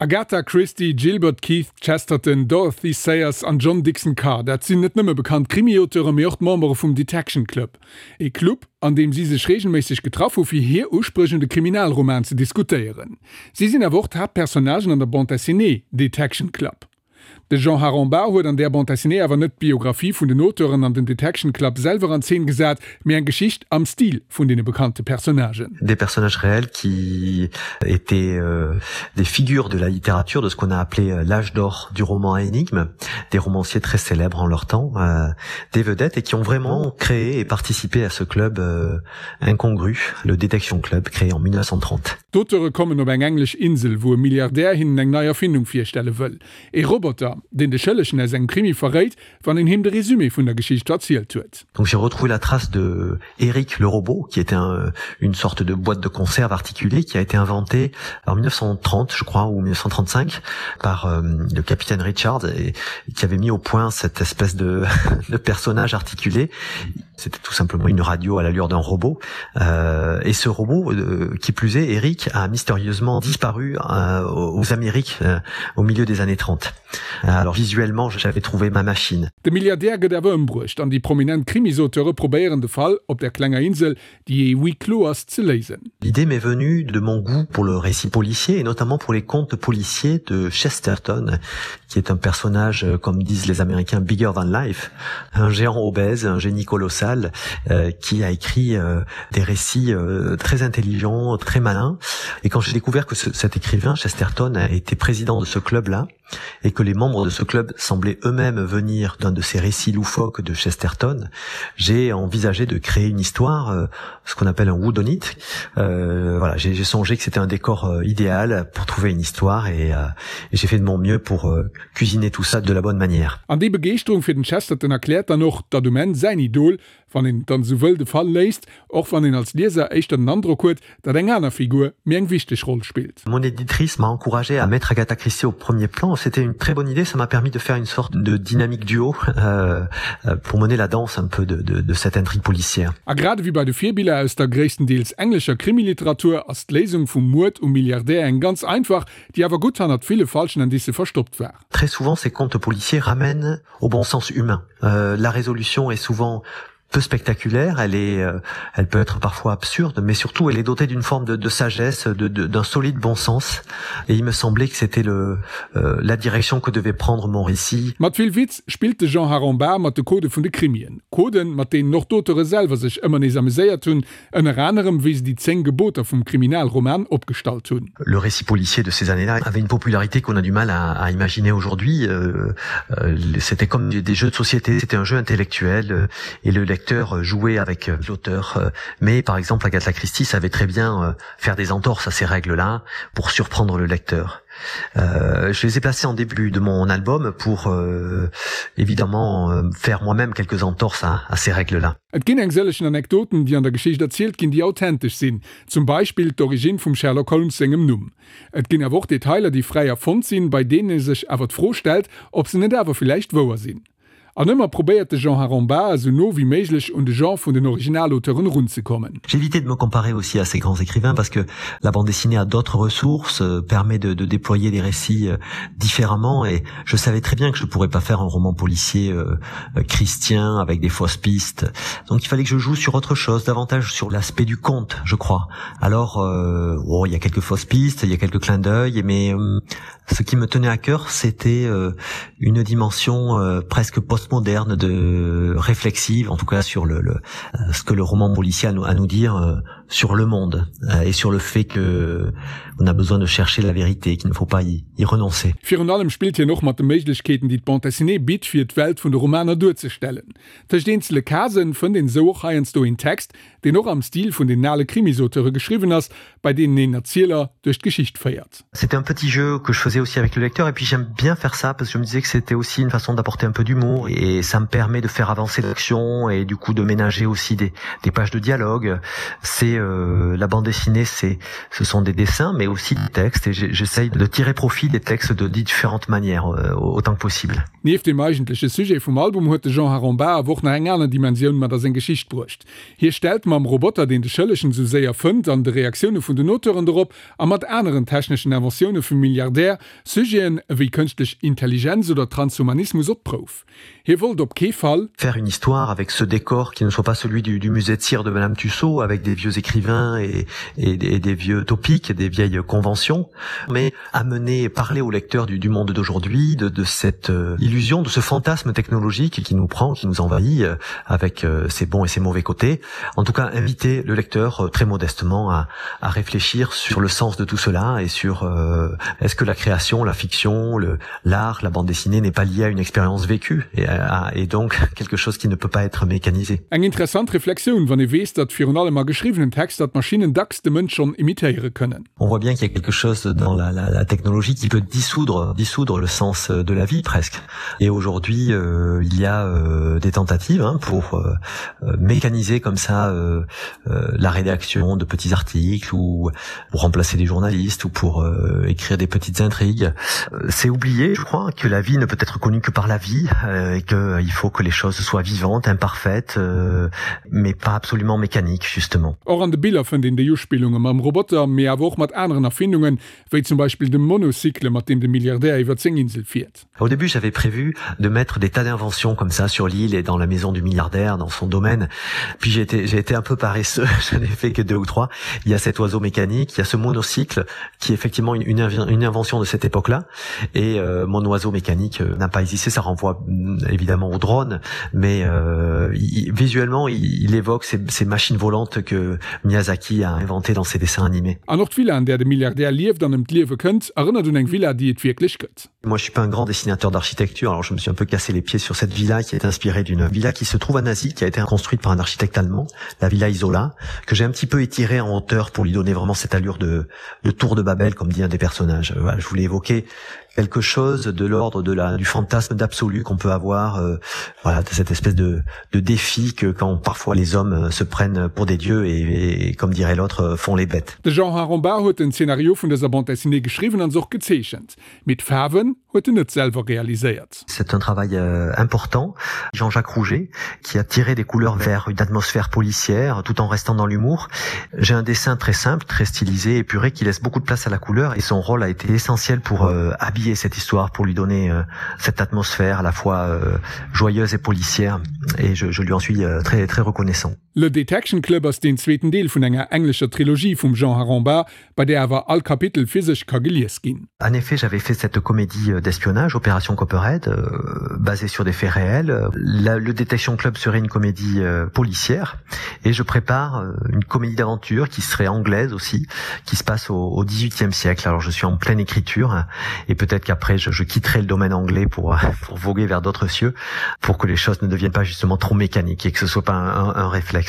Agatha Christie, Gilbert Keith Chesterton, Dorothy Sayers an John Dickson Carr, dat sinn net nëmme bekannt Krimi-Auteure mee och d'Membere vum Detection Club. E Club, an deem si sech reegelméisseg getraff hu fir hir Uspréch un de Kriminalroman ze diskutéieren. Si sinn awer och d'Haaptpersonnagen an der Bande dessinée Detection Club. De Jean Harambat huet an där Bande dessinée awer net d'Biographie vun den Auteuren an den Detection Club selwer an Zeen gesat, mee eng Geschicht am Stil vun deene bekannte Personnagen. Des personnages réels qui étaient des figures de la littérature de ce qu'on a appelé l'âge d'or du roman à énigmes, des romanciers très célèbres en leur temps, des vedettes et qui ont vraiment créé et participé à ce club incongru, le Detection Club créé en 1930. D'Auteure kommen op eng englesch Insel, wou e Milliardär hinnen eng nei Erfindung virstelle wëll. E Roboter, deen de Schëllegen aus engem Krimi verréit, wann een him de Résumé vun der Geschicht erzielt huet. Donc j'ai retrouvé la trace de Eric le robot, qui était un, une sorte de boîte de conserve articulée qui a été inventée en 1930, je crois, ou 1935 par euh, le capitaine Richard et, qui avait mis au point cette espèce de, de personnage articulé. C'était tout simplement une radio à l'allure d'un robot. Euh, et ce robot, euh, qui plus est, Eric, a mystérieusement disparu euh, aux Amériques euh, au milieu des années 30. Alors visuellement, j'avais trouvé ma machine. De Milliardär gëtt awer ëmbruecht an déi prominent Krimisauteuре probéieren de Fall op der klenger Insel, déi e huis clos ass, ze léisen. L'idée m'est venue de mon goût pour le récit policier et notamment pour les contes policiers de Chesterton, qui est un personnage, euh, comme disent les Américains, bigger than life, un géant obèse, un génie colossal, euh, qui a écrit euh, des récits euh, très intelligents, très malins. Et quand j'ai découvert que ce, cet écrivain, Chesterton, a été président de ce club-là, et que les membres de ce club semblaient eux-mêmes venir d'un de ces récits loufoques de Chesterton, j'ai envisagé de créer une histoire, euh, ce qu'on appelle un woodonite. Euh, voilà, j'ai songé que c'était un décor euh, idéal pour trouver une histoire et, euh, et j'ai fait de mon mieux pour euh, cuisiner tout ça de la bonne manière. An déi Begeeschterung fir den Chesterton erkläert dann och, datt um Enn säin Idol, wann een et dann esou wëll, de Fall léist, och wann een als Lieser éischter den Androck huet, datt eng aner Figur méi eng wichteg Roll spillt. Mon éditrice m'a encouragé à mettre Agatha Christie au premier plan. C'était une très bonne idée, ça m'a permis de faire une sorte de dynamique duo euh, euh, pour mener la danse un peu de, de, de cette intrigue policière. A grad ewéi bei de Virbiller aus der gréisstendeels englescher Krimiliteratur ass d'Léisung vum Muerd um Milliardär eng ganz einfach, déi awer gutt hannert ville falschen Indicë verstoppt war. Très souvent, ces contes policiers ramènent au bon sens humain. Euh, la résolution est souvent peu spectaculaire, elle est euh, elle peut être parfois absurde, mais surtout elle est dotée d'une forme de, de sagesse, d'un solide bon sens et il me semblait que c'était le euh, la direction que devait prendre mon récit. Mat vill Witz spillt de Jean Harambat mat de Codë vun de Krimien. Coden, mat deenen och d'Auteure selwer sech ëmmer nees ameséiert hunn, ënner anerem wéi se déi 10 Geboter vum Kriminalroman opgestallt hunn. Le récit policier de ces années-là avait une popularité qu'on a du mal à, à imaginer aujourd'hui. Euh, euh, c'était comme des jeux de société, c'était un jeu intellectuel euh, et le lecteur jouait avec euh, l'auteur. Euh, mais par exemple, Agatha Christie savait très bien euh, faire des entorses à ces règles-là pour surprendre le lecteur. Euh, je les ai placés en début de mon album pour euh, évidemment euh, faire moi-même quelques entorses à, à ces règles-là. Et ginn eng sëllegen Anekdoten, déi an der Geschicht erzielt ginn, déi authentesch sinn, zum Beispill d'Originn vum Sherlock Holmes sengem Numm. Et ginn awer och Detailer, déi fräi erfonnt sinn, bei deenen ee sech awer d'Fro stellt, ob se net awer villäicht wouer sinn. An ëmmer probéiert de Jean Harambat esou no wéi méiglech un de Genre vun den Originalauteuren erunzekommen. J'évitais de me comparer aussi à ces grands écrivains parce que la bande dessinée a d'autres ressources, euh, permet de, de déployer des récits euh, différemment et je savais très bien que je pourrais pas faire un roman policier euh, euh, christien avec des fausses pistes. Donc il fallait que je joue sur autre chose, davantage sur l'aspect du conte, je crois. Alors euh, oh, il y a quelques fausses pistes, il y a quelques clins d'œil, mais euh, ce qui me tenait à cœur, c'était euh, une dimension euh, presque postmoderne de réflexive, en tout cas sur le, le euh, ce que le roman policier a nous, a nous dire euh, sur le monde euh, et sur le fait que on a besoin de chercher la vérité, qu'il ne faut pas y, y renoncer. Virun allem spillt hien och mat de Méiglechkeeten, déi d'Bande dessinée bitt, fir d'Welt vun de Romaner duerzestellen. Tëscht eenzele Casen fënnt een esou och heiansdo een Text, deen och am Stil vun den ale Krimisauteuре geschriwwen ass, bei deenen een Erzieler duerch d'Geschicht féiert. C'était un petit jeu que je faisais aussi avec le lecteur et puis j'aime bien faire ça parce que je me disais que c'était aussi une façon d'apporter un peu d'humour et ça me permet de faire avancer l'action et du coup de ménager aussi des, des pages de dialogue. C'est Et euh, la bande dessinée, c'est ce sont des dessins, mais aussi des textes et j'essaye de tirer profit des textes de différentes manières euh, autant que possible. Nieft dem eigentleche Sujet vum Album huet de Jean Harambat awer och nach eng aner Dimensioun mat a seng Geschicht bruecht. Hie stellt mam Roboter, deen de Schëllegen esou séier fënnt, an de Reaktioune vun den Auteuren dorop a mat aneren techneschen Inventioune vum Milliardär Sujeten ewéi kënschtlech Intelligenz oder Transhumanismus op d'Prouf. Hie wollt op kee Fall. Faire une histoire avec ce décor qui ne soit pas celui du, du musée de cire de Madame Tussaud avec des vieux écrivains et, et, et des vieux topiques, des vieilles conventions, mais amener parler au lecteur du, du monde d'aujourd'hui, de, de cette euh, illusion, de ce fantasme technologique qui nous prend, qui nous envahit euh, avec euh, ses bons et ses mauvais côtés. En tout cas, inviter le lecteur très modestement à, à réfléchir sur le sens de tout cela et sur euh, est-ce que la création, la fiction, l'art, la bande dessinée n'est pas liée à une expérience vécue et, à, et donc quelque chose qui ne peut pas être mécanisé. Eng interessant Reflexioun, wann ee weess, datt virun allem a geschriwwenen Texter d'Maschinnen dacks de Mënsch schonn imitéiere kënnen. On voit bien qu'il y a quelque chose dans la, la, la technologie qui peut dissoudre, dissoudre le sens de la vie presque. Et aujourd'hui, euh, il y a euh, des tentatives hein, pour euh, euh, mécaniser comme ça euh, euh, la rédaction de petits articles ou pour remplacer des journalistes ou pour euh, écrire des petites intrigues. Euh, c'est oublié, je crois, que la vie ne peut être connue que par la vie euh, et qu'il euh, faut que les choses soient vivantes, imparfaites, euh, mais pas absolument mécaniques justement. Och an de Biller fënnt een déi Uspillunge mam Roboter, mee awer och mat aneren Erfindungen, wéi zum Beispill dem Monocycle, mat deem de Milliardär iwwer seng Insel fiert. Au début, j'avais prévu de mettre des tas d'inventions comme ça sur l'île et dans la maison du milliardaire, dans son domaine. Puis j'ai été, j'ai été un peu paresseux, je n'ai fait que deux ou trois. Il y a cet oiseau mécanique, il y a ce monocycle qui est effectivement une, une, une invention de cette époque-là. Et euh, mon oiseau mécanique euh, n'a pas existé, ça renvoie mm, évidemment au drone, mais euh, il, visuellement, il, il évoque ces, ces machines volantes que Miyazaki a inventées dans ses dessins animés. An och d'Villa, an där de Milliardär lieft an ëm d'Liewe kënnt, erënnert un eng Villa, déi et wierklech gëtt. Moi, je suis pas un grand dessinateur d'architecture, alors je me suis un peu cassé les pieds sur cette villa qui est inspirée d'une villa qui se trouve à Nazi, qui a été construite par un architecte allemand, la villa Isola, que j'ai un petit peu étirée en hauteur pour lui donner vraiment cette allure de, de tour de Babel, comme dit un des personnages. Voilà, je voulais évoquer quelque chose de l'ordre de la du fantasme d'absolu qu'on peut avoir euh, voilà de cette espèce de, de défi que quand parfois les hommes euh, se prennent pour des dieux et, et comme dirait l'autre euh, font les bêtes. De Jean Harambat huet den Zeenario vun dëser Bande dessinée geschriwwen an se och gezeechent. Mee d'Faarwen huet en net selwer réaliséiert. C'est un travail euh, important. Jean-Jacques Rouget qui a tiré des couleurs vers une atmosphère policière tout en restant dans l'humour. J'ai un dessin très simple, très stylisé, épuré qui laisse beaucoup de place à la couleur et son rôle a été essentiel pour euh, habiller cette histoire, pour lui donner euh, cette atmosphère à la fois euh, joyeuse et policière et je, je lui en suis euh, très très reconnaissant. Le Detection Club ass deen zweeten Deel vun enger englescher Trilogie vum Jean Harambat, bei där awer all Kapitel fir sech ka gelies ginn. En effet, j'avais fait cette comédie euh, d'espionnage, Opération Copperhead, euh, basée sur des faits réels. La, le Detection Club serait une comédie euh, policière et je prépare euh, une comédie d'aventure qui serait anglaise aussi, qui se passe au, au 18e siècle. Alors je suis en pleine écriture et peut-être qu'après je, je quitterai le domaine anglais pour, pour voguer vers d'autres cieux, pour que les choses ne deviennent pas justement trop mécaniques et que ce soit pas un, un, un réflexe.